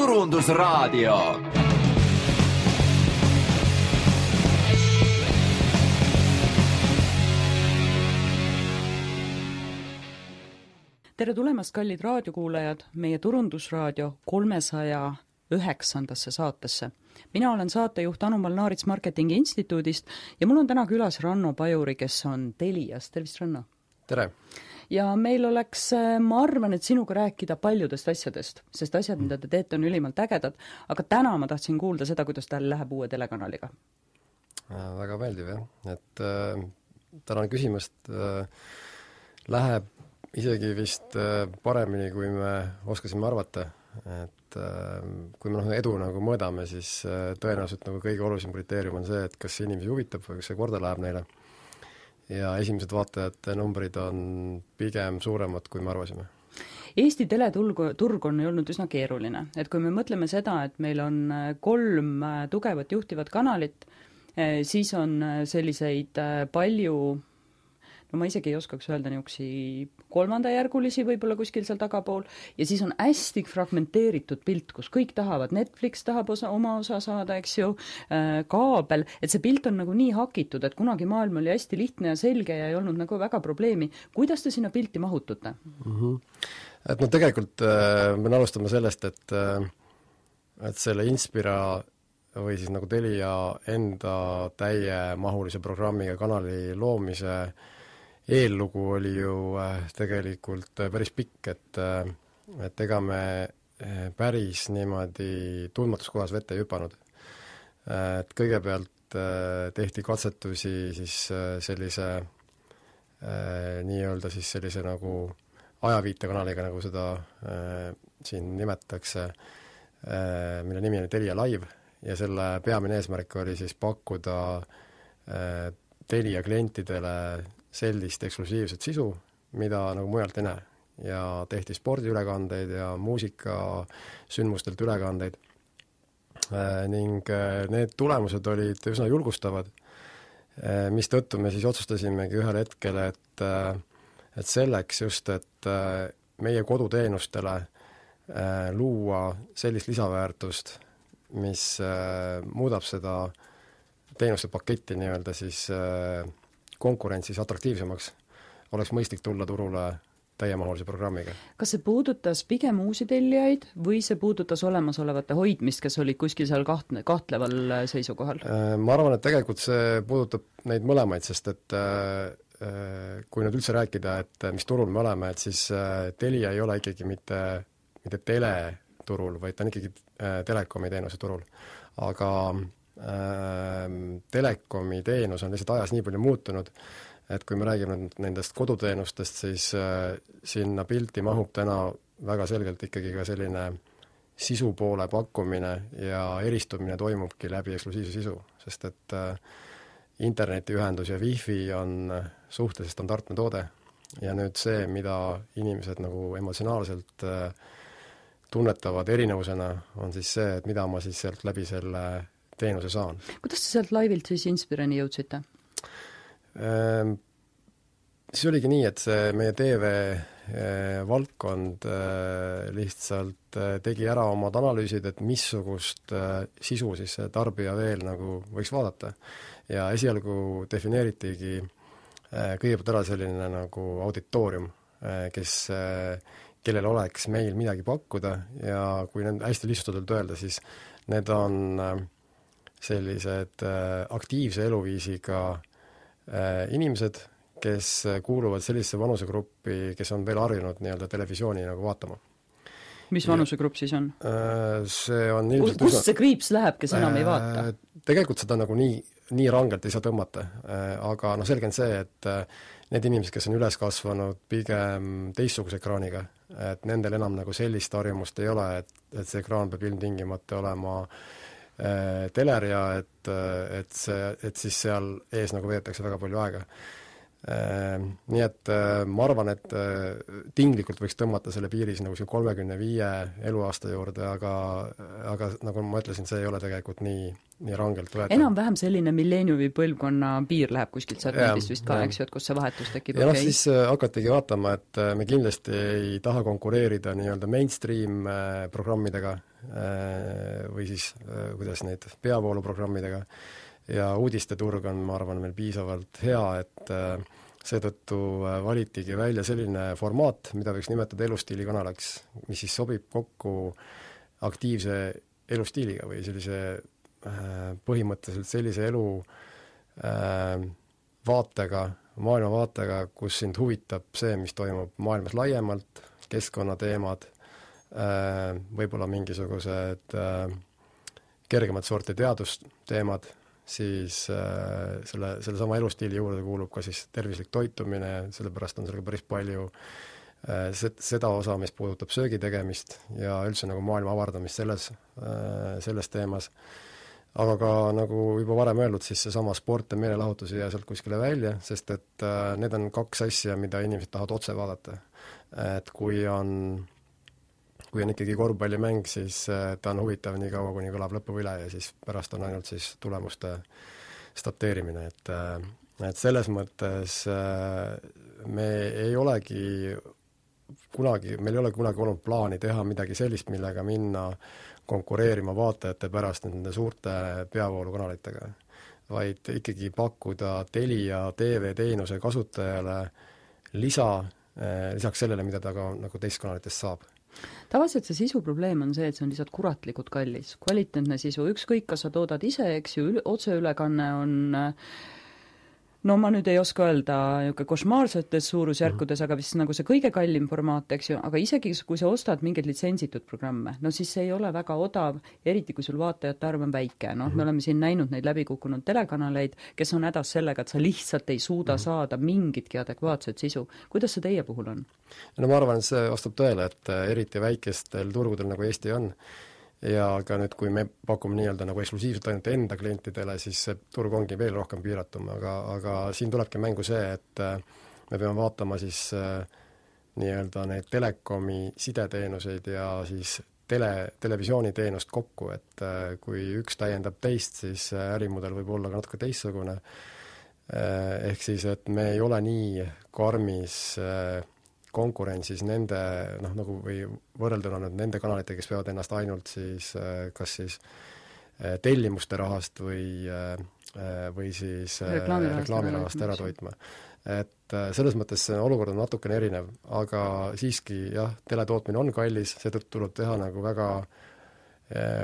Turundusraadio. Tere tulemast, kallid raadiokuulajad, meie Turundusraadio 309. saatesse. Mina olen saatejuht Anu-Mall Naarits Marketingi Instituudist ja mul on täna külas Ranno Pajuri, kes on Teliast. Tervist, Ranno! Tere! Ja meil oleks, ma arvan, et sinuga rääkida paljudest asjadest, sest asjad, mida te teete, on ülimalt ägedad, aga täna ma tahtsin kuulda seda, kuidas tal läheb uue telekanaliga. Väga meeldiv, jah. Et tänane küsimust läheb isegi vist paremini, kui me oskasime arvata. Et kui me edu nagu mõõdame, siis tõenäoliselt nagu kõige olulisem kriteerium on see, et kas see inimesi huvitab või kas see korda läheb neile. Ja esimesed vaatajate numbrid on pigem suuremad, kui me arvasime. Eesti teleturg on olnud üsna keeruline, et kui me mõtleme seda, et meil on 3 tugevat juhtivat kanalit, siis on selliseid palju, no ma isegi ei oskaks öelda niuksi kolmandajärgulisi võib-olla kuskil seal tagapool, ja siis on hästi fragmenteeritud pilt, kus kõik tahavad, Netflix tahab oma osa saada, eks ju, kaabel, et see pilt on nagu nii hakitud, et kunagi maailm oli hästi lihtne ja selge ja ei olnud nagu väga probleemi. Kuidas te sinna pilti mahutute? Et tegelikult me alustame sellest, et selle Inspira või siis nagu Telia enda täiemahulise programmiga kanali loomise eellugu oli ju tegelikult päris pikk, et ega me päris niimoodi tundmatus kohas vette ei hüpanud. Et kõigepealt tehti katsetusi siis sellise nii-öelda siis sellise nagu ajaviitekanaliga, nagu seda siin nimetatakse, mille nimi oli Telia Live, ja selle peamine eesmärk oli siis pakkuda Telia klientidele sellist eksklusiivset sisu, mida nagu mujalt ei näe. Ja tehti spordiülekandeid ja muusikasündmustelt ülekandeid. Ning need tulemused olid üsna julgustavad, mistõttu me siis otsustasimegi ühel hetkel, et selleks just, et meie koduteenustele luua sellist lisaväärtust, mis muudab seda teenuste paketti nii-öelda siis konkurentsis atraktiivsemaks, oleks mõistlik tulla turule täiemahulise programmiga. Kas see puudutas pigem uusi tellijaid või see puudutas olemasolevate hoidmist, kes olid kuskil seal kahtleval seisukohal? Ma arvan, et tegelikult see puudutab neid mõlemaid, sest et kui nüüd üldse rääkida, et mis turul me oleme, et siis Telia ei ole ikkagi mitte teleturul, vaid ta on ikkagi telekomi teenuse turul. Aga telekomi teenus on lihtsalt ajas nii palju muutunud, et kui me räägime nendest koduteenustest, siis sinna pilti mahub täna väga selgelt ikkagi ka selline sisupoole pakkumine ja eristumine toimubki läbi eksklusiivse sisu, sest et internetiühendus ja wifi on suhteliselt standardne toode ja nüüd see, mida inimesed nagu emotsionaalselt tunnetavad erinevusena, on siis see, et mida ma siis sealt läbi selle teenuse saan. Kuidas te sealt laivilt siis Inspirani jõudsite? Siis oligi nii, et see meie TV-valdkond lihtsalt tegi ära omad analüüsid, et missugust sisu siis tarbija veel nagu võiks vaadata. Ja esialgu defineeritigi kõigepealt ära selline nagu auditoorium, kellel oleks meil midagi pakkuda ja kui need hästi lihtsustatult öelda, siis need on sellised aktiivse eluviisiga inimesed, kes kuuluvad sellisesse vanusegruppi, kes on veel harjunud nii-öelda televisiooni nagu vaatama. Mis vanusegrupp siis on? See on ilmselt kust see kriips läheb, kes enam ei vaata? Tegelikult seda nagu nii rangelt ei saa tõmmata, aga selge on see, et need inimesed, kes on üles kasvanud pigem teistsuguse ekraaniga, et nendel enam nagu sellist harjumust ei ole, et see ekraan peab ilmtingimata olema teler ja et siis seal ees nagu veetakse väga palju aega. Nii et ma arvan, et tinglikult võiks tõmmata selle piiris nagu 35 eluaasta juurde, aga nagu ma ütlesin, see ei ole tegelikult nii rangelt võetav. Enam-vähem selline milleeniumi põlvkonna piir läheb kuskilt sealt vist ka, eks ju, et kus see vahetus tekib. Ja siis hakatigi vaatama, et me kindlasti ei taha konkureerida nii-öelda mainstream programmidega või siis kuidas neid peavooluprogrammidega, ja uudisteturg on, ma arvan, meil piisavalt hea, et seetõttu valitigi välja selline formaat, mida võiks nimetada elustiilikanalaks, mis siis sobib kokku aktiivse elustiiliga või sellise põhimõtteliselt sellise elu vaatega, maailmavaatega, kus sind huvitab see, mis toimub maailmas laiemalt, keskkonnateemad, võib-olla mingisugused kergemat sorti teadusteemad, siis selle sama elustiili juurde kuulub ka siis tervislik toitumine, sellepärast on sellega päris palju seda osa, mis puudutab söögi tegemist ja üldse nagu maailma avardamist selles teemas. Aga ka nagu juba varem öeldud, siis seesama sport ja meelelahutus ei jää sealt kuskile välja, sest et need on kaks asja, mida inimesed tahavad otse vaadata. Et kui on ikkagi korvpallimäng, siis ta on huvitav nii kaua, kuni kõlab lõpuvile ja siis pärast on ainult siis tulemuste stateerimine, et selles mõttes me ei olegi meil ei ole kunagi olnud plaani teha midagi sellist, millega minna konkureerima vaatajate pärast nende suurte peavoolukanalitega, vaid ikkagi pakkuda Telia TV-teenuse kasutajale lisaks sellele, mida ta ka nagu teist kanalitest saab. Tavaliselt see sisuprobleem on see, et see on lihtsalt kuratlikult kallis. Kvaliteetne sisu, ükskõik, kas sa toodad ise, eks ju, otseülekanne on, no ma nüüd ei oska öelda košmaarsetes suurusjärkudes, aga vist nagu see kõige kallim formaat, eks ju, aga isegi kui sa ostad mingeid litsentsitud programme, no siis see ei ole väga odav, eriti kui sul vaatajate arv on väike. No, me oleme siin näinud neid läbikukkunud telekanaleid, kes on hädas sellega, et sa lihtsalt ei suuda saada mingitki adekvaatset sisu. Kuidas see teie puhul on? No ma arvan, et see vastab tõele, et eriti väikestel turgudel nagu Eesti on, ja ka nüüd, kui me pakume nii-öelda nagu eksklusiivselt ainult enda klientidele, siis see turg ongi veel rohkem piiratum, aga siin tulebki mängu see, et me peame vaatama siis nii-öelda neid telekomi sideteenuseid ja siis televisiooniteenust kokku, et kui üks täiendab teist, siis ärimudel võib olla ka natuke teistsugune. Ehk siis, et me ei ole nii karmis konkurentsis nende, nagu või võrrelduna nüüd nende kanalite, kes peavad ennast ainult siis kas siis tellimuste rahast või siis reklaamirahast ära toitma. Et selles mõttes see olukord on natukene erinev, aga siiski jah, teletootmine on kallis, seetõttu tuleb teha nagu väga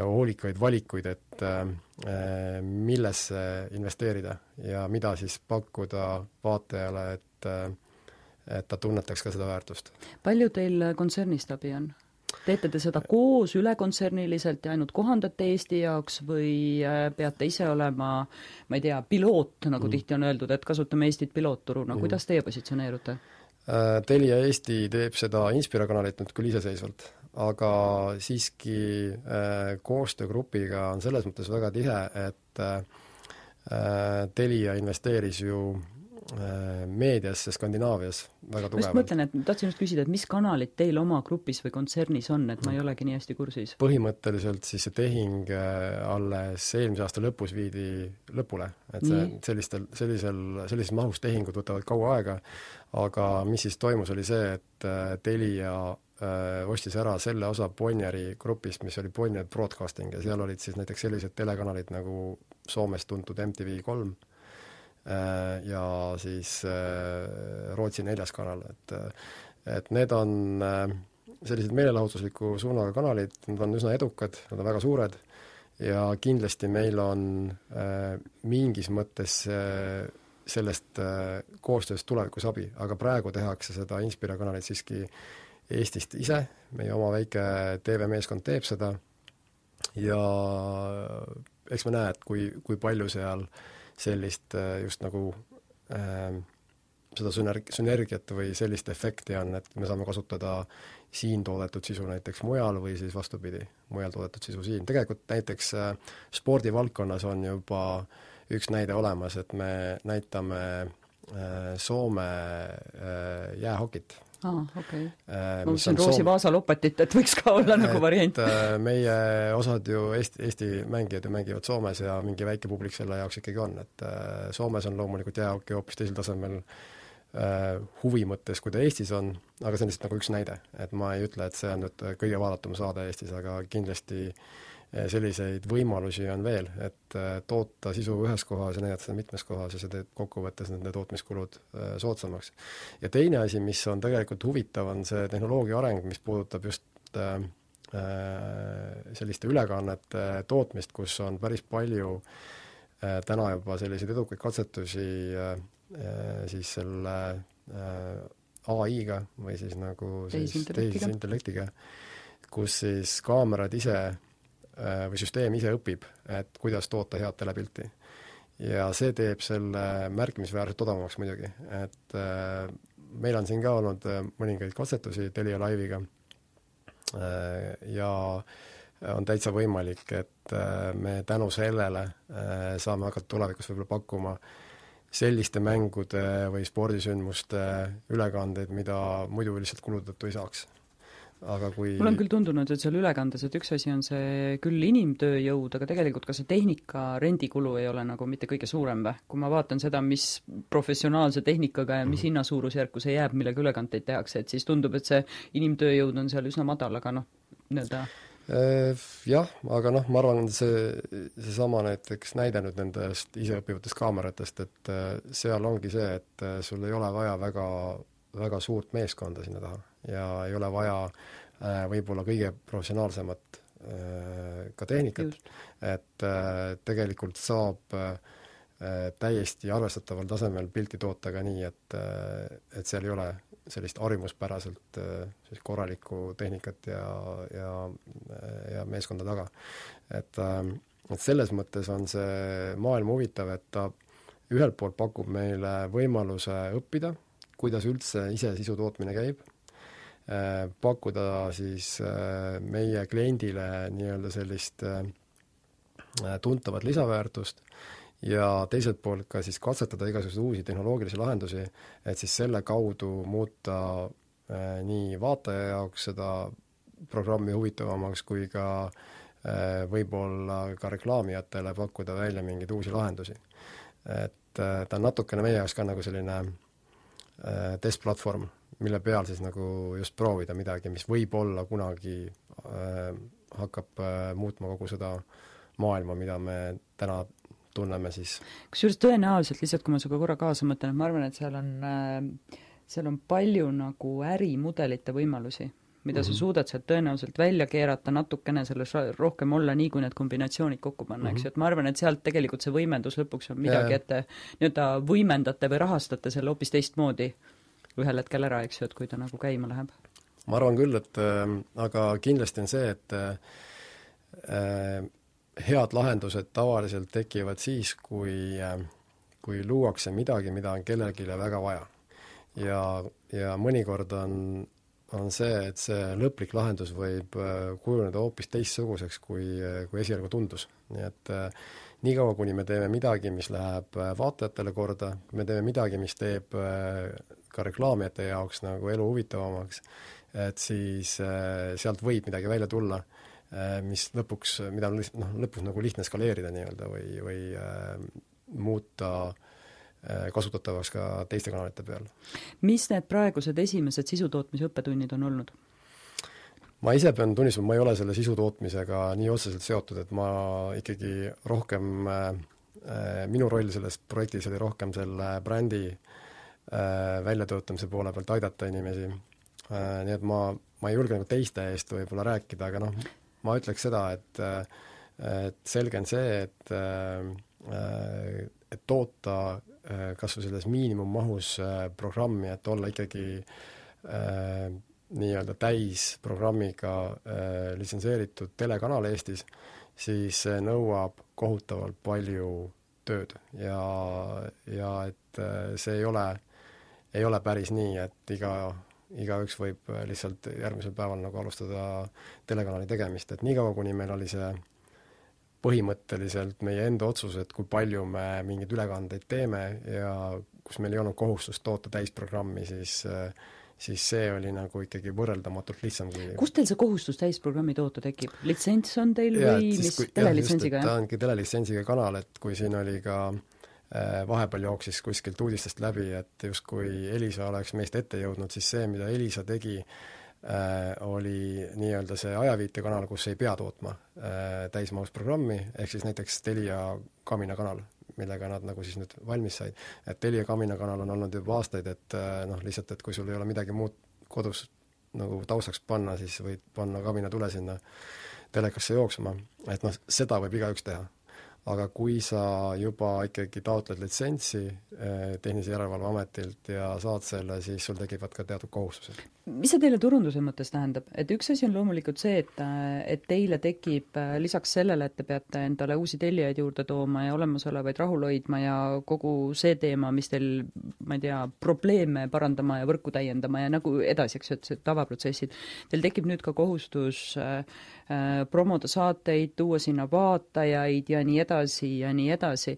hoolikaid valikuid, et millesse investeerida ja mida siis pakkuda vaatajale, et ta tunnetaks ka seda väärtust. Palju teil kontsernist abi on? Teete te seda koos ülekontserniliselt ja ainult kohandate Eesti jaoks või peate ise olema, ma ei tea, piloot, nagu tihti on öeldud, et kasutame Eestit pilootturuna. Kuidas teie positsioneerute? Telia Eesti teeb seda Inspira kanalit nüüd küll iseseisvalt, aga siiski koostöögrupiga on selles mõttes väga tihe, et Telia investeeris ju meediasse Skandinaavias väga tugevalt. Just mõtlen, et tahtsin just küsida, et mis kanalid teil oma grupis või kontsernis on, et ma ei olegi nii hästi kursis? Põhimõtteliselt siis see tehing alles eelmise aasta lõpus viidi lõpule, et sellises mahus tehingud võtavad kaua aega, aga mis siis toimus, oli see, et Telia ostis ära selle osa Bonnieri grupist, mis oli Bonnier Broadcasting ja seal olid siis näiteks sellised telekanalid nagu Soomes tuntud MTV3 ja siis Rootsi 4. kanal, et need on sellised meelelahutusliku suunaga kanalid, nad on üsna edukad, nad on väga suured ja kindlasti meil on mingis mõttes sellest koostööst tulevikus abi, aga praegu tehakse seda Inspira kanalit siiski Eestist ise, meie oma väike TV-meeskond teeb seda ja eks me näe, et kui palju seal sellist just nagu seda sünergiat või sellist efekti on, et me saame kasutada siin toodetud sisu näiteks mujal või siis vastupidi, mujal toodetud sisu siin. Tegelikult näiteks spordivaldkonnas on juba üks näide olemas, et me näitame Soome jäähokit. Okei. Ma mõtlesin Roosi Vaasa-Lopatit, et võiks ka olla nagu variant. Meie osad ju Eesti mängijad ju mängivad Soomes ja mingi väike publik selle jaoks ikkagi on, et Soomes on loomulikult jäähoki hoopis teisel tasemel huvi mõttes, kui ta Eestis on, aga see on lihtsalt nagu üks näide, et ma ei ütle, et see on nüüd kõige vaadatum saade Eestis, aga kindlasti selliseid võimalusi on veel, et toota sisu ühes kohas ja näidata seda mitmes kohas ja see teeb kokkuvõttes nende tootmiskulud soodsamaks. Ja teine asi, mis on tegelikult huvitav, on see tehnoloogia areng, mis puudutab just selliste ülekannete tootmist, kus on päris palju täna juba selliseid edukaid katsetusi siis selle AI-ga või siis nagu tehisintellektiga, kus siis kaamerad ise või süsteem ise õpib, et kuidas toota head telepilti. Ja see teeb selle märkimisväärselt odavamaks muidugi, et meil on siin ka olnud mõningaid katsetusi Telia Live'iga ja on täitsa võimalik, et me tänu sellele saame hakata tulevikus võib-olla pakkuma selliste mängude või spordisündmuste ülekandeid, mida muidu lihtsalt kulutatu ei saaks. Aga kui mul on küll tundunud, et seal ülekandes, et üks asi on see küll inimtööjõud, aga tegelikult ka see tehnika rendikulu ei ole nagu mitte kõige suurem või? Kui ma vaatan seda, mis professionaalse tehnikaga ja mis hinnasuurusjärku see jääb, millega ülekanteid tehakse, et siis tundub, et see inimtööjõud on seal üsna madal, aga jah, aga ma arvan, seesama näiteks näide nüüd nendest iseõppivatest kaameratest, et seal ongi see, et sul ei ole vaja väga suurt meeskonda sinna taha ja ei ole vaja võib-olla kõige professionaalsemat ka tehnikat, et tegelikult saab täiesti arvestataval tasemel pilti toota ka nii, et seal ei ole sellist harjumuspäraselt korralikku tehnikat ja meeskonda taga. Et selles mõttes on see maailm huvitav, et ta ühelt poolt pakub meile võimaluse õppida, kuidas üldse ise sisu tootmine käib, pakkuda siis meie kliendile nii-öelda sellist tuntavat lisaväärtust ja teiselt poolt ka siis katsetada igasuguseid uusi tehnoloogilisi lahendusi, et siis selle kaudu muuta nii vaataja jaoks seda programmi huvitavamaks kui ka võib-olla ka reklaamijatele pakkuda välja mingeid uusi lahendusi. Et ta on natukene meie jaoks ka nagu selline testplatvorm, mille peal siis nagu just proovida midagi, mis võib-olla kunagi hakkab muutma kogu seda maailma, mida me täna tunneme siis. Kusjuures tõenäoliselt, lihtsalt kui ma sinuga korra kaasa mõtlen, et ma arvan, et seal on palju nagu ärimudelite võimalusi, mida sa suudad sealt tõenäoliselt välja keerata, natukene selles rohkem olla nii, kui need kombinatsioonid kokku panna, eks ju, et ma arvan, et sealt tegelikult see võimendus lõpuks on midagi, et te nii-öelda võimendate või rahastate selle hoopis teistmoodi ühel hetkel ära, eks ju, et kui ta nagu käima läheb. Ma arvan küll, et aga kindlasti on see, et head lahendused tavaliselt tekivad siis, kui luuakse midagi, mida on kellelegi väga vaja. Ja mõnikord on see, et see lõplik lahendus võib kujuneda hoopis teistsuguseks, kui esialgu tundus. Nii et niikaua, kuni me teeme midagi, mis läheb vaatajatele korda, me teeme midagi, mis teeb ka reklaamijate jaoks nagu elu huvitavamaks, et siis sealt võib midagi välja tulla, mida on lõpuks nagu lihtne skaleerida nii-öelda või muuta kasutatavaks ka teiste kanalite peal. Mis need praegused esimesed sisutootmise õppetunnid on olnud? Ma ise pean tunnistama, ma ei ole selle sisutootmisega nii otseselt seotud, et ma ikkagi rohkem, minu roll selles projektis oli rohkem selle brändi väljatöötamise poole pealt aidata inimesi. Nii et ma ei julge nagu teiste eest võib-olla rääkida, aga ma ütleks seda, et selge on see, et toota kas või selles miinimummahus programmi, et olla ikkagi nii-öelda täisprogrammiga litsenseeritud telekanal Eestis, siis see nõuab kohutavalt palju tööd ja et see ei ole päris nii, et igaüks võib lihtsalt järgmisel päeval nagu alustada telekanali tegemist, et niikaua, kuni meil oli see põhimõtteliselt meie enda otsus, et kui palju me mingeid ülekandeid teeme ja kus meil ei olnud kohustust toota täisprogrammi, siis see oli nagu ikkagi võrreldamatult lihtsam kui... Kust teil see kohustus täisprogrammi toota tekib? Litsents on teil või mis telelitsentsiga? Ta ongi telelitsentsiga kanal, et kui siin oli ka vahepeal jooksis kuskilt uudistest läbi, et justkui Elisa oleks meist ette jõudnud, siis see, mida Elisa tegi, oli nii-öelda see ajaviitekanal, kus ei pea tootma täismahus programmi, ehk siis näiteks Telia Kamina kanal, millega nad nagu siis nüüd valmis said. Et Telia Kamina kanal on olnud juba aastaid, et lihtsalt, et kui sul ei ole midagi muud kodus nagu taustaks panna, siis võid panna Kamina tule sinna telekasse jooksma. Et seda võib igaüks teha. Aga kui sa juba ikkagi taotled litsentsi Tehnilise Järelevalve Ametilt ja saad selle, siis sul tekivad ka teatud kohustused. Mis see teile turunduse mõttes tähendab? Et üks asi on loomulikult see, et teile tekib lisaks sellele, et te peate endale uusi tellijaid juurde tooma ja olemasolevaid rahul hoidma ja kogu see teema, mis teil, ma ei tea, probleeme parandama ja võrku täiendama ja nagu edasi, eks ju, et see tavaprotsessid. Teil tekib nüüd ka kohustus promoda saateid, tuua sinna vaatajaid ja nii edasi.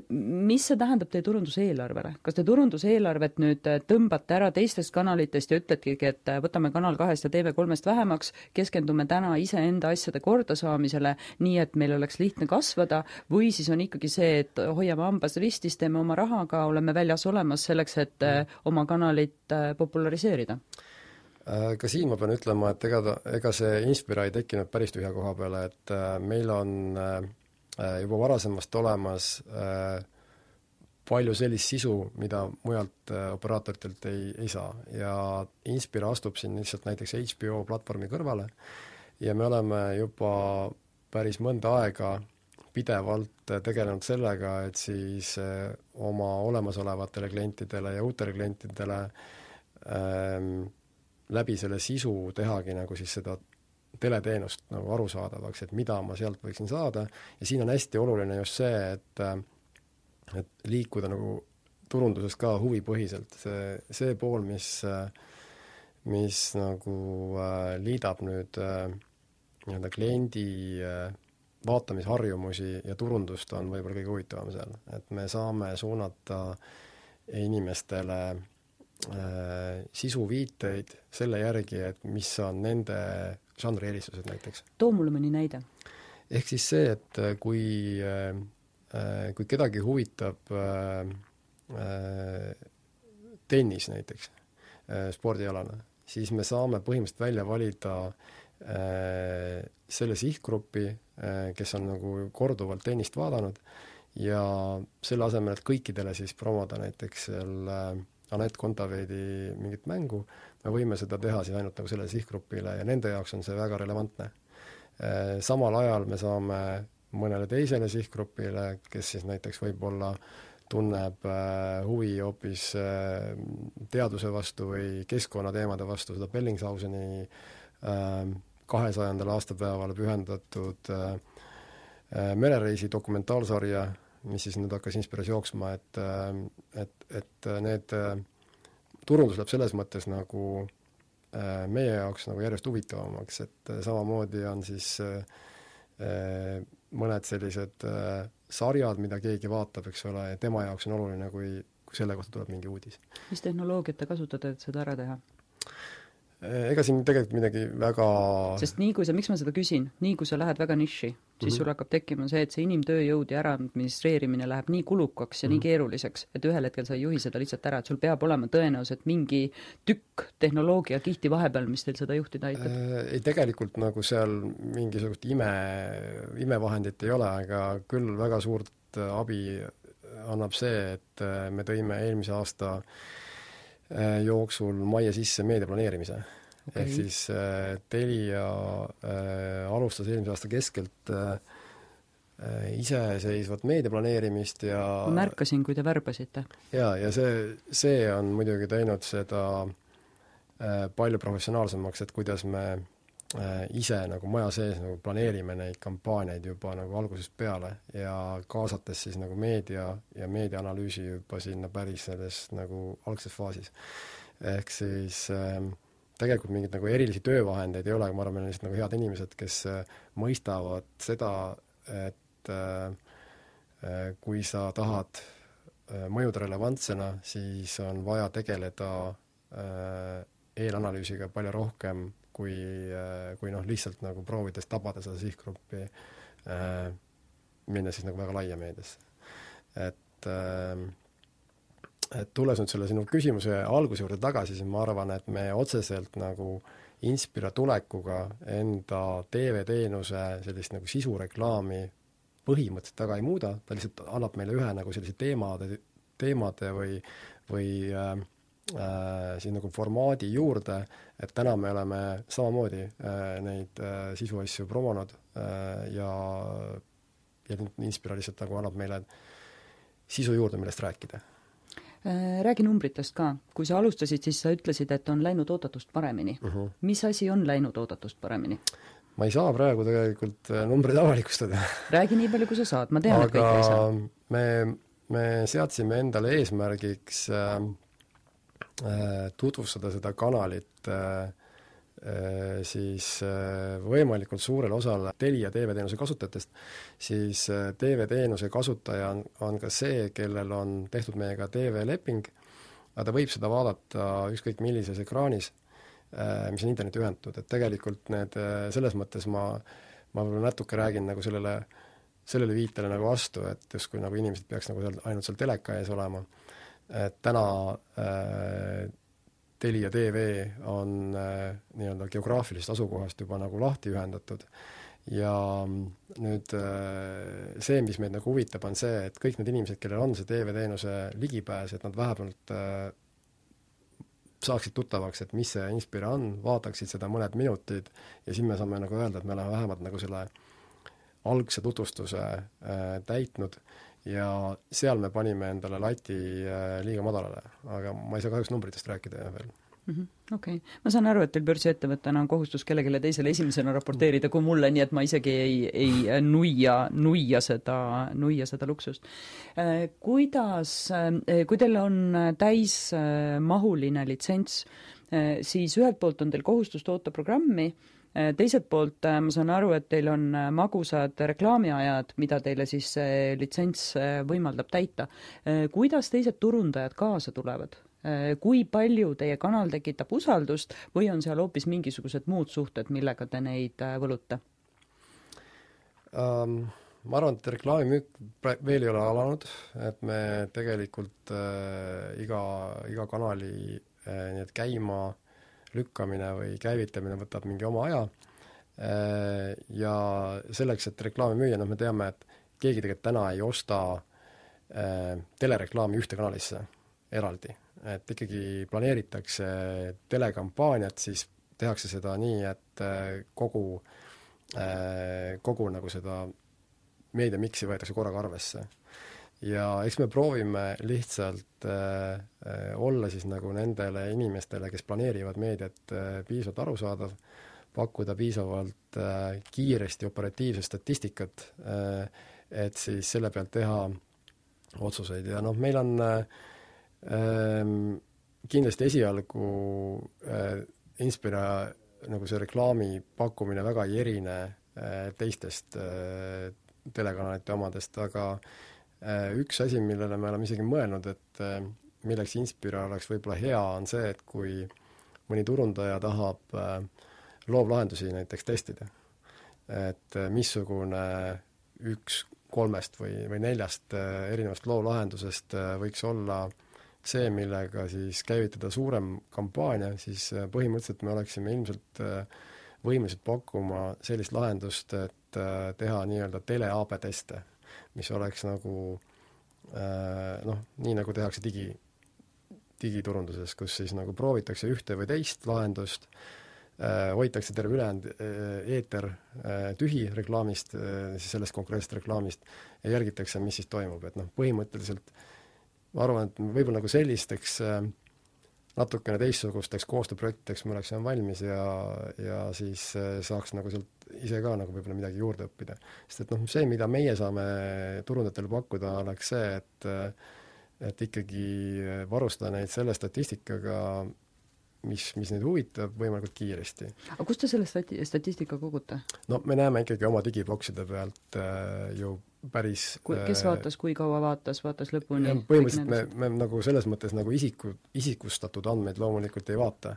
Mis see tähendab teie turunduseelarvele? Kas te turunduseelarvet nüüd tõmbate ära teistest kanalitest ja ütletegi, et võtame Kanal 2 ja TV3 vähemaks, keskendume täna iseenda asjade kordasaamisele, nii et meil oleks lihtne kasvada, või siis on ikkagi see, et hoiame hambas ristis, teeme oma rahaga, oleme väljas olemas selleks, et oma kanalit populariseerida? Ka siin ma pean ütlema, et ega see Inspira ei tekkinud päris tühja koha peale, et meil on juba varasemast olemas palju sellist sisu, mida mujalt operaatoritelt ei saa. Ja Inspira astub siin lihtsalt näiteks HBO platvormi kõrvale ja me oleme juba päris mõnda aega pidevalt tegelenud sellega, et siis oma olemasolevatele klientidele ja uutele klientidele läbi selle sisu tehagi nagu siis seda teleteenust nagu arusaadavaks, et mida ma sealt võiksin saada, ja siin on hästi oluline just see, et liikuda nagu turunduses ka huvipõhiselt. See pool, mis nagu liidab nüüd nii-öelda kliendi vaatamisharjumusi ja turundust, on võib-olla kõige huvitavam seal. Et me saame suunata inimestele sisuviiteid selle järgi, et mis on nende žanri eelistused näiteks. Too mulle mõni näide. Ehk siis see, et kui kedagi huvitab tennis näiteks spordialana, siis me saame põhimõtteliselt välja valida selle sihtgrupi, kes on nagu korduvalt tennist vaadanud, ja selle asemel, et kõikidele siis promoda näiteks selle Anett Kontaveidi mingit mängu, me võime seda teha siis ainult nagu selle sihtgrupile ja nende jaoks on see väga relevantne. Samal ajal me saame mõnele teisele sihtgrupile, kes siis näiteks võib-olla tunneb huvi hoopis teaduse vastu või keskkonnateemade vastu, seda Bellingshauseni 200. aastapäevale pühendatud merereisi dokumentaalsarja, mis siis nüüd hakkas Inspiras jooksma, et need turundus läheb selles mõttes nagu meie jaoks nagu järjest huvitavamaks, et samamoodi on siis mõned sellised sarjad, mida keegi vaatab, eks ole, ja tema jaoks on oluline, kui selle kohta tuleb mingi uudis. Mis tehnoloogiat te kasutate, et seda ära teha? Ega siin tegelikult midagi väga... Sest nii kui sa, miks ma seda küsin, nii kui sa lähed väga niši, siis sul hakkab tekkima see, et see inimtööjõud ja äraadministreerimine läheb nii kulukaks ja nii keeruliseks, et ühel hetkel sa ei juhi seda lihtsalt ära, et sul peab olema tõenäoliselt mingi tükk tehnoloogia kihti vahepeal, mis teil seda juhtida aitab. Ei, tegelikult nagu seal mingisugust imevahendit ei ole, aga küll väga suurt abi annab see, et me tõime eelmise aasta jooksul majja sisse meediaplaneerimise. Okay. Ehk siis Telia alustas eelmise aasta keskelt iseseisvat meediaplaneerimist ja... Ma märkasin, kui te värbasite. Ja see on muidugi teinud seda palju professionaalsemaks, et kuidas me ise nagu maja sees nagu planeerime neid kampaaniaid juba nagu algusest peale ja kaasates siis nagu meedia ja meediaanalüüsi juba sinna päris selles nagu algses faasis. Ehk siis tegelikult mingid nagu erilisi töövahendeid ei ole, aga ma arvan, meil on lihtsalt nagu head inimesed, kes mõistavad seda, et kui sa tahad mõjuda relevantsena, siis on vaja tegeleda eelanalüüsiga palju rohkem kui lihtsalt nagu proovides tabada seda sihtgruppi, minna siis nagu väga laia meediasse. Et tulles nüüd selle sinu küsimuse alguse juurde tagasi, siis ma arvan, et me otseselt nagu Inspira tulekuga enda TV-teenuse sellist nagu sisureklaami põhimõtteliselt taga ei muuda, ta lihtsalt annab meile ühe nagu sellise teemade või siis nagu formaadi juurde, et täna me oleme samamoodi neid sisuasju promonud ja Inspira lihtsalt nagu annab meile sisu juurde, millest rääkida. Räägi numbritest ka. Kui sa alustasid, siis sa ütlesid, et on läinud oodatust paremini. Mis asi on läinud oodatust paremini? Ma ei saa praegu tegelikult numbreid avalikustada. Räägi nii palju, kui sa saad. Ma tean, et kõik ei saa. Me seadsime endale eesmärgiks tutvustada seda kanalit siis võimalikult suurele osale Telia TV-teenuse kasutajatest, siis TV-teenuse kasutaja on ka see, kellel on tehtud meiega TV-leping, aga ta võib seda vaadata ükskõik millises ekraanis, mis on interneti ühendatud, et tegelikult need, selles mõttes ma võib-olla natuke räägin nagu sellele viitele nagu vastu, et justkui nagu inimesed peaks nagu ainult seal teleka ees olema, et täna Telia TV on nii-öelda geograafilisest asukohast juba nagu lahti ühendatud ja nüüd see, mis meid nagu huvitab, on see, et kõik need inimesed, kellel on see TV-teenuse ligipääs, et nad vähemalt saaksid tuttavaks, et mis see Inspira on, vaataksid seda mõned minutid ja siis me saame nagu öelda, et me oleme vähemalt nagu selle algse tutvustuse täitnud ja seal me panime endale lati liiga madalale, aga ma ei saa kahjuks numbritest rääkida veel. Okei. Ma saan aru, et teil börsioettevõttena on kohustus kellelegi teisele esimesena raporteerida kui mulle, nii et ma isegi ei nuia seda luksust. Kuidas, kui teil on täismahuline litsents, siis ühelt poolt on teil kohustus toota programmi, teiselt poolt ma saan aru, et teil on magusad reklaamiajad, mida teile siis litsents võimaldab täita. Kuidas teised turundajad kaasa tulevad? Kui palju teie kanal tekitab usaldust või on seal hoopis mingisugused muud suhted, millega te neid võlute? Ma arvan, et reklaamimüük veel ei ole alanud, et me tegelikult iga kanali nii et käima lükkamine või käivitamine võtab mingi oma aja ja selleks, et reklaami müüa, me teame, et keegi tegelikult täna ei osta telereklaami ühte kanalisse eraldi, et ikkagi planeeritakse telekampaaniat, siis tehakse seda nii, et kogu nagu seda meediamiksi võetakse korraga arvesse. Ja eks me proovime lihtsalt olla siis nagu nendele inimestele, kes planeerivad meediat piisavalt arusaadav, pakkuda piisavalt kiiresti operatiivset statistikat, et siis selle pealt teha otsuseid ja meil on kindlasti esialgu Inspira nagu see reklaami pakkumine väga ei erine teistest telekanalite omadest, aga üks asi, millele me oleme isegi mõelnud, et milleks Inspira oleks võib-olla hea, on see, et kui mõni turundaja tahab loovlahendusi näiteks testida, et missugune 1-3 või 4 erinevast loovlahendusest võiks olla see, millega siis käivitada suurem kampaania, siis põhimõtteliselt me oleksime ilmselt võimelised pakkuma sellist lahendust, et teha nii-öelda tele-AB-teste, mis oleks nagu nii nagu tehakse digiturunduses, kus siis nagu proovitakse ühte või teist lahendust, hoitakse terve ülejäänud eeter tühi reklaamist, siis sellest konkreetsest reklaamist ja jälgitakse, mis siis toimub, et põhimõtteliselt ma arvan, et võib-olla nagu sellisteks natukene teistsugusteks koostööprojektideks me oleksime valmis ja siis saaks nagu sealt ise ka nagu võib-olla midagi juurde õppida. Sest et see, mida meie saame turundajatele pakkuda, oleks see, et ikkagi varustada neid selle statistikaga, mis neid huvitab võimalikult kiiresti. Aga kust te selle statistika kogute? Me näeme ikkagi oma digibokside pealt ju päris kes vaatas, kui kaua vaatas lõpuni? Põhimõtteliselt me nagu selles mõttes nagu isikustatud andmeid loomulikult ei vaata,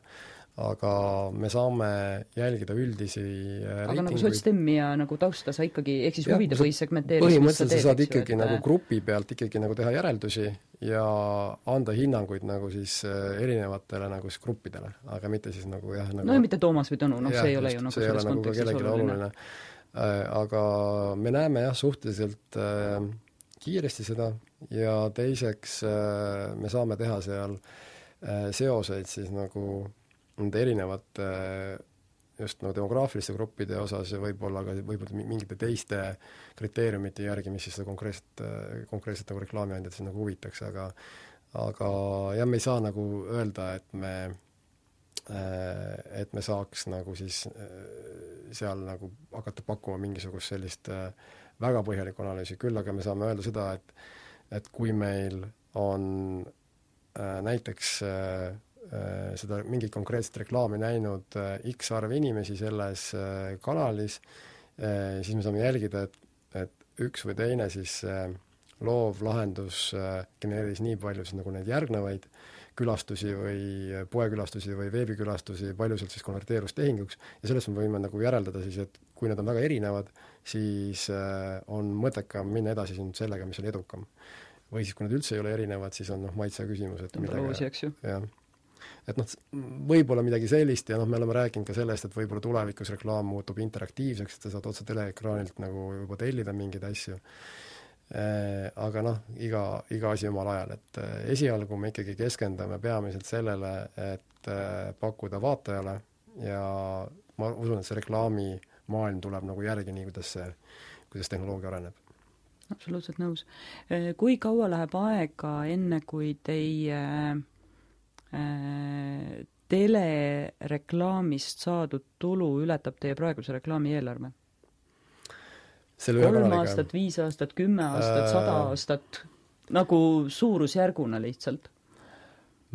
aga me saame jälgida üldisi aga nagu sotstemmi ja nagu tausta sa ikkagi, ehk siis huvide või segmenteeris, põhimõtteliselt sa saad ikkagi nagu grupi pealt ikkagi nagu teha järeldusi ja anda hinnanguid nagu siis erinevatele nagu siis gruppidele, aga mitte siis nagu nagu no ja mitte Toomas või Tõnu, see ei ole ju nagu selles kontekstis oluline. Aga me näeme suhteliselt kiiresti seda ja teiseks me saame teha seal seoseid siis nagu nende erinevate just nagu demograafiliste gruppide osas ja võib-olla mingite teiste kriteeriumite järgi, mis siis seda konkreetset nagu reklaamiandjat siis nagu huvitaks, aga jah, me ei saa nagu öelda, et me saaks nagu siis seal nagu hakata pakkuma mingisugust sellist väga põhjalikku analüüsi, küll aga me saame öelda seda, et kui meil on näiteks seda mingit konkreetset reklaami näinud X arv inimesi selles kanalis, siis me saame jälgida, et üks või teine siis loov lahendus genereeris nii palju siis nagu neid järgnevaid külastusi või poekülastusi või veebikülastusi, palju sealt siis konverteerus tehinguks ja sellest me võime nagu järeldada siis, et kui need on väga erinevad, siis on mõttekam minna edasi sellega, mis on edukam. Või siis, kui need üldse ei ole erinevad, siis on maitse küsimus, et millega, jah. Et võib-olla midagi sellist ja me oleme rääkinud ka sellest, et võib-olla tulevikus reklaam muutub interaktiivseks, et sa saad otse teleekraanilt nagu juba tellida mingeid asju. Aga iga asi omal ajal, et esialgu me ikkagi keskendume peamiselt sellele, et pakkuda vaatajale ja ma usun, et see reklaamimaailm tuleb nagu järgi nii, kuidas tehnoloogia areneb. Absoluutselt nõus. Kui kaua läheb aega enne, kui teie telereklaamist saadud tulu ületab teie praeguse reklaami eelarve? 3 aastat, 5 aastat, 10 aastat, 100 aastat, nagu suurusjärguna lihtsalt?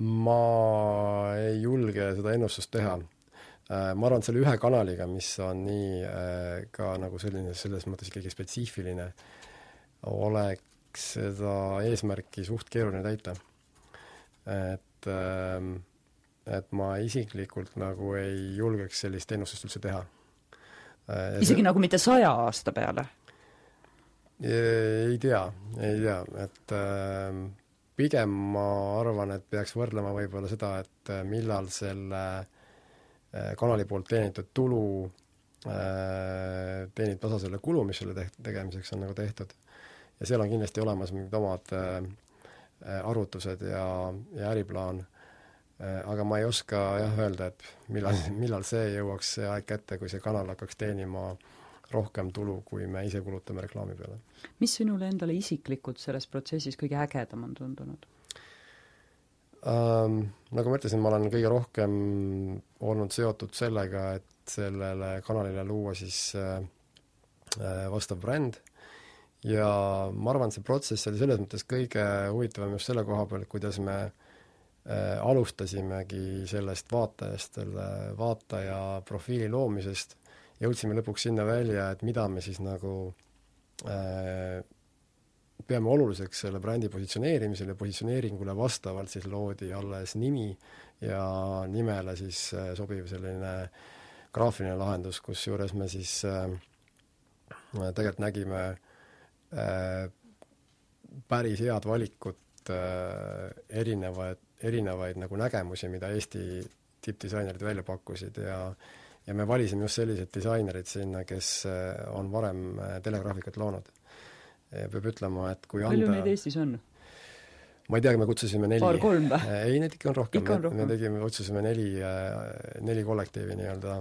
Ma ei julge seda ennustust teha. Ma arvan, et selle ühe kanaliga, mis on nii ka nagu selline, selles mõttes ikkagi spetsiifiline, oleks seda eesmärki suht keeruline täita. Et ma isiklikult nagu ei julgeks sellist ennustust üldse teha. Isegi nagu mitte 100 aasta peale? Ei tea, et pigem ma arvan, et peaks võrdlema võib-olla seda, et millal selle kanali poolt teenitud tulu teenib tasa selle kulu, mis selle tegemiseks on nagu tehtud. Ja seal on kindlasti olemas mingid omad arvutused ja äriplaan, aga ma ei oska öelda, et millal see jõuaks see aeg kätte, kui see kanal hakkaks teenima rohkem tulu, kui me ise kulutame reklaami peale. Mis sinule endale isiklikult selles protsessis kõige ägedam on tundunud? Nagu ma ütlesin, ma olen kõige rohkem olnud seotud sellega, et sellele kanalile luua siis vastav bränd ja ma arvan, et see protsess oli selles mõttes kõige huvitavam just selle koha peal, kuidas me alustasimegi sellest vaatajast, selle vaataja profiili loomisest, jõudsime lõpuks sinna välja, et mida me siis nagu peame oluliseks selle brändi positsioneerimisele ja positsioneeringule vastavalt siis loodi alles nimi ja nimele siis sobiv selline graafiline lahendus, kus juures me siis tegelikult nägime päris head valikut erinevaid nagu nägemusi, mida Eesti tippdisainerid välja pakkusid ja me valisime just sellised disainerid sinna, kes on varem telegraafikat loonud. Peab ütlema, et kui palju neid Eestis on? Ma ei tea, me kutsusime 4. Paar-3 või? Ei, neid ikka on rohkem. Me otsusime 4 kollektiivi nii-öelda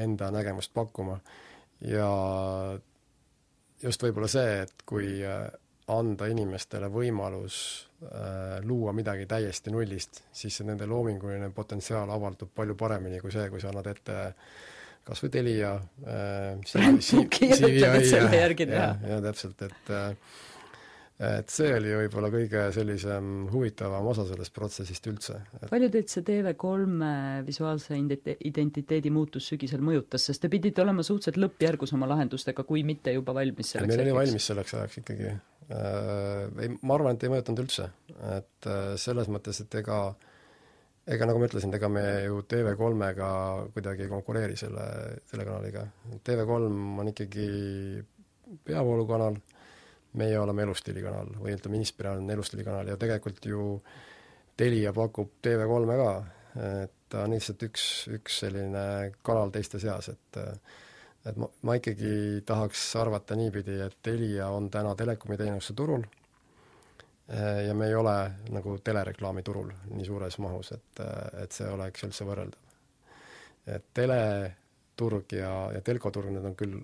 enda nägemust pakkuma ja just võib-olla see, et kui anda inimestele võimalus luua midagi täiesti nullist, siis nende loominguline potentsiaal avaldub palju paremini kui see, kui sa annad ette kas või Telia Brandbooki ja ütled, et selle järgi teha. Ja täpselt, et see oli võib-olla kõige sellisem huvitavam osa sellest protsessist üldse. Palju teid see TV3 visuaalse identiteedi muutus sügisel mõjutas, sest te pidite olema suhteliselt lõppjärgus oma lahendustega, kui mitte juba valmis selleks meil oli valmis selleks ajaks ikkagi. Ma arvan, et ei mõjutanud üldse. Et selles mõttes, et ega nagu ma ütlesin, ega me ju TV3-ga kuidagi ei konkureeri selle kanaliga. TV3 on ikkagi peavoolukanal, meie oleme elustiilikanal või ütleme, inspiraalne elustiilikanal ja tegelikult ju Telia pakub TV3 ka, et ta on lihtsalt üks selline kanal teiste seas, et ma ikkagi tahaks arvata niipidi, et Telia on täna telekomiteenuste turul ja me ei ole nagu telereklaami turul nii suures mahus, et see oleks üldse võrreldav. Et teleturg ja telkoturg, need on küll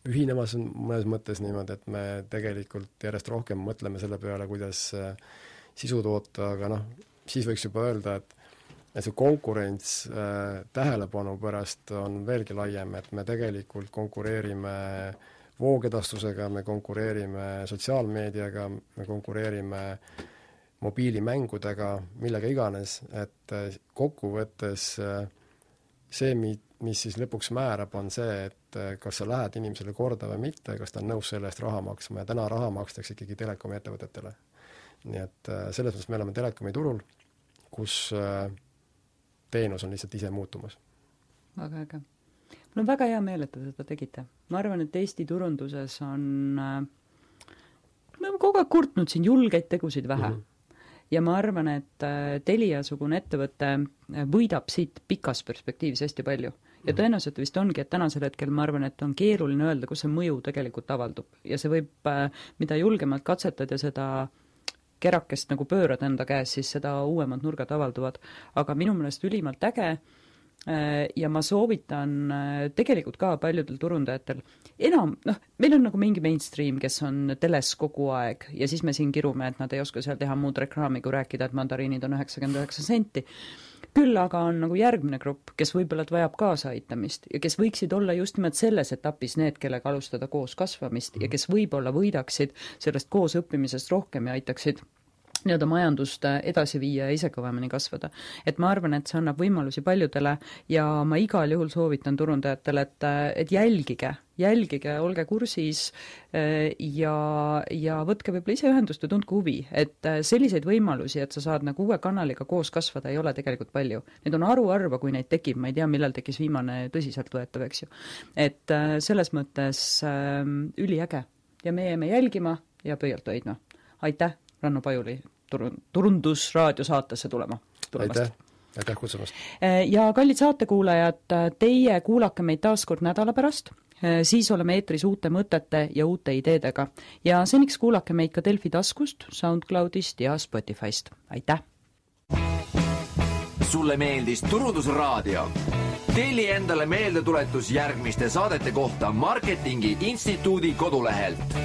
ühinemas mõnes mõttes niimoodi, et me tegelikult järjest rohkem mõtleme selle peale, kuidas sisu toota, aga siis võiks juba öelda, et see konkurents tähelepanu pärast on veelgi laiem, et me tegelikult konkureerime voogedastusega, me konkureerime sotsiaalmeediaga, me konkureerime mobiilimängudega, millega iganes, et kokkuvõttes see, mis siis lõpuks määrab, on see, et kas sa lähed inimesele korda või mitte, kas ta on nõus selle eest raha maksma ja täna raha makstakse ikkagi telekomi ettevõtetele. Nii et selles mõttes me oleme telekomi turul, kus teenus on lihtsalt ise muutumas. Väga äge. Mul on väga hea meel, et te seda tegite. Ma arvan, et Eesti turunduses on me oleme kogu aeg kurtnud siin julgeid tegusid vähe. Ja ma arvan, et Telia-sugune ettevõte võidab siit pikas perspektiivis hästi palju. Ja tõenäoliselt vist ongi, et tänasel hetkel ma arvan, et on keeruline öelda, kus see mõju tegelikult avaldub. Ja see võib, mida julgemalt katsetad ja seda kerakest nagu pöörad enda käes, siis seda uuemad nurgad avalduvad. Aga minu meelest ülimalt äge ja ma soovitan tegelikult ka paljudel turundajatel meil on nagu mingi mainstream, kes on teles kogu aeg ja siis me siin kirume, et nad ei oska seal teha muud reklaami, kui rääkida, et mandariinid on 99 senti. Küll aga on nagu järgmine grupp, kes võib-olla vajab kaasaitamist ja kes võiksid olla just nimelt selles etapis need, kellega alustada koos kasvamist ja kes võib-olla võidaksid sellest koos õppimisest rohkem ja aitaksid nii-öelda majandust edasi viia ja ise kõvemini kasvada. Et ma arvan, et see annab võimalusi paljudele ja ma igal juhul soovitan turundajatele, et jälgige, olge kursis ja võtke võib-olla ise ühendust ja tundke huvi, et selliseid võimalusi, et sa saad nagu uue kanaliga koos kasvada, ei ole tegelikult palju. Need on haruharva, kui neid tekib, ma ei tea, millal tekkis viimane tõsiselt võetav, eks ju. Et selles mõttes üliäge ja me jääme jälgima ja pöialt hoidma. Aitäh! Ranno Pajuli turundusraadio saatesse tulemast. Aitäh kutsumast. Ja kallid saatekuulajad, teie kuulake meid taaskord nädala pärast, siis oleme eetris uute mõtete ja uute ideedega. Ja seniks kuulake meid ka Delfi taskust, SoundCloudist ja Spotifyst. Aitäh! Sulle meeldis Turundusraadio? Telli endale meeldetuletus järgmiste saadete kohta Marketingi Instituudi kodulehelt.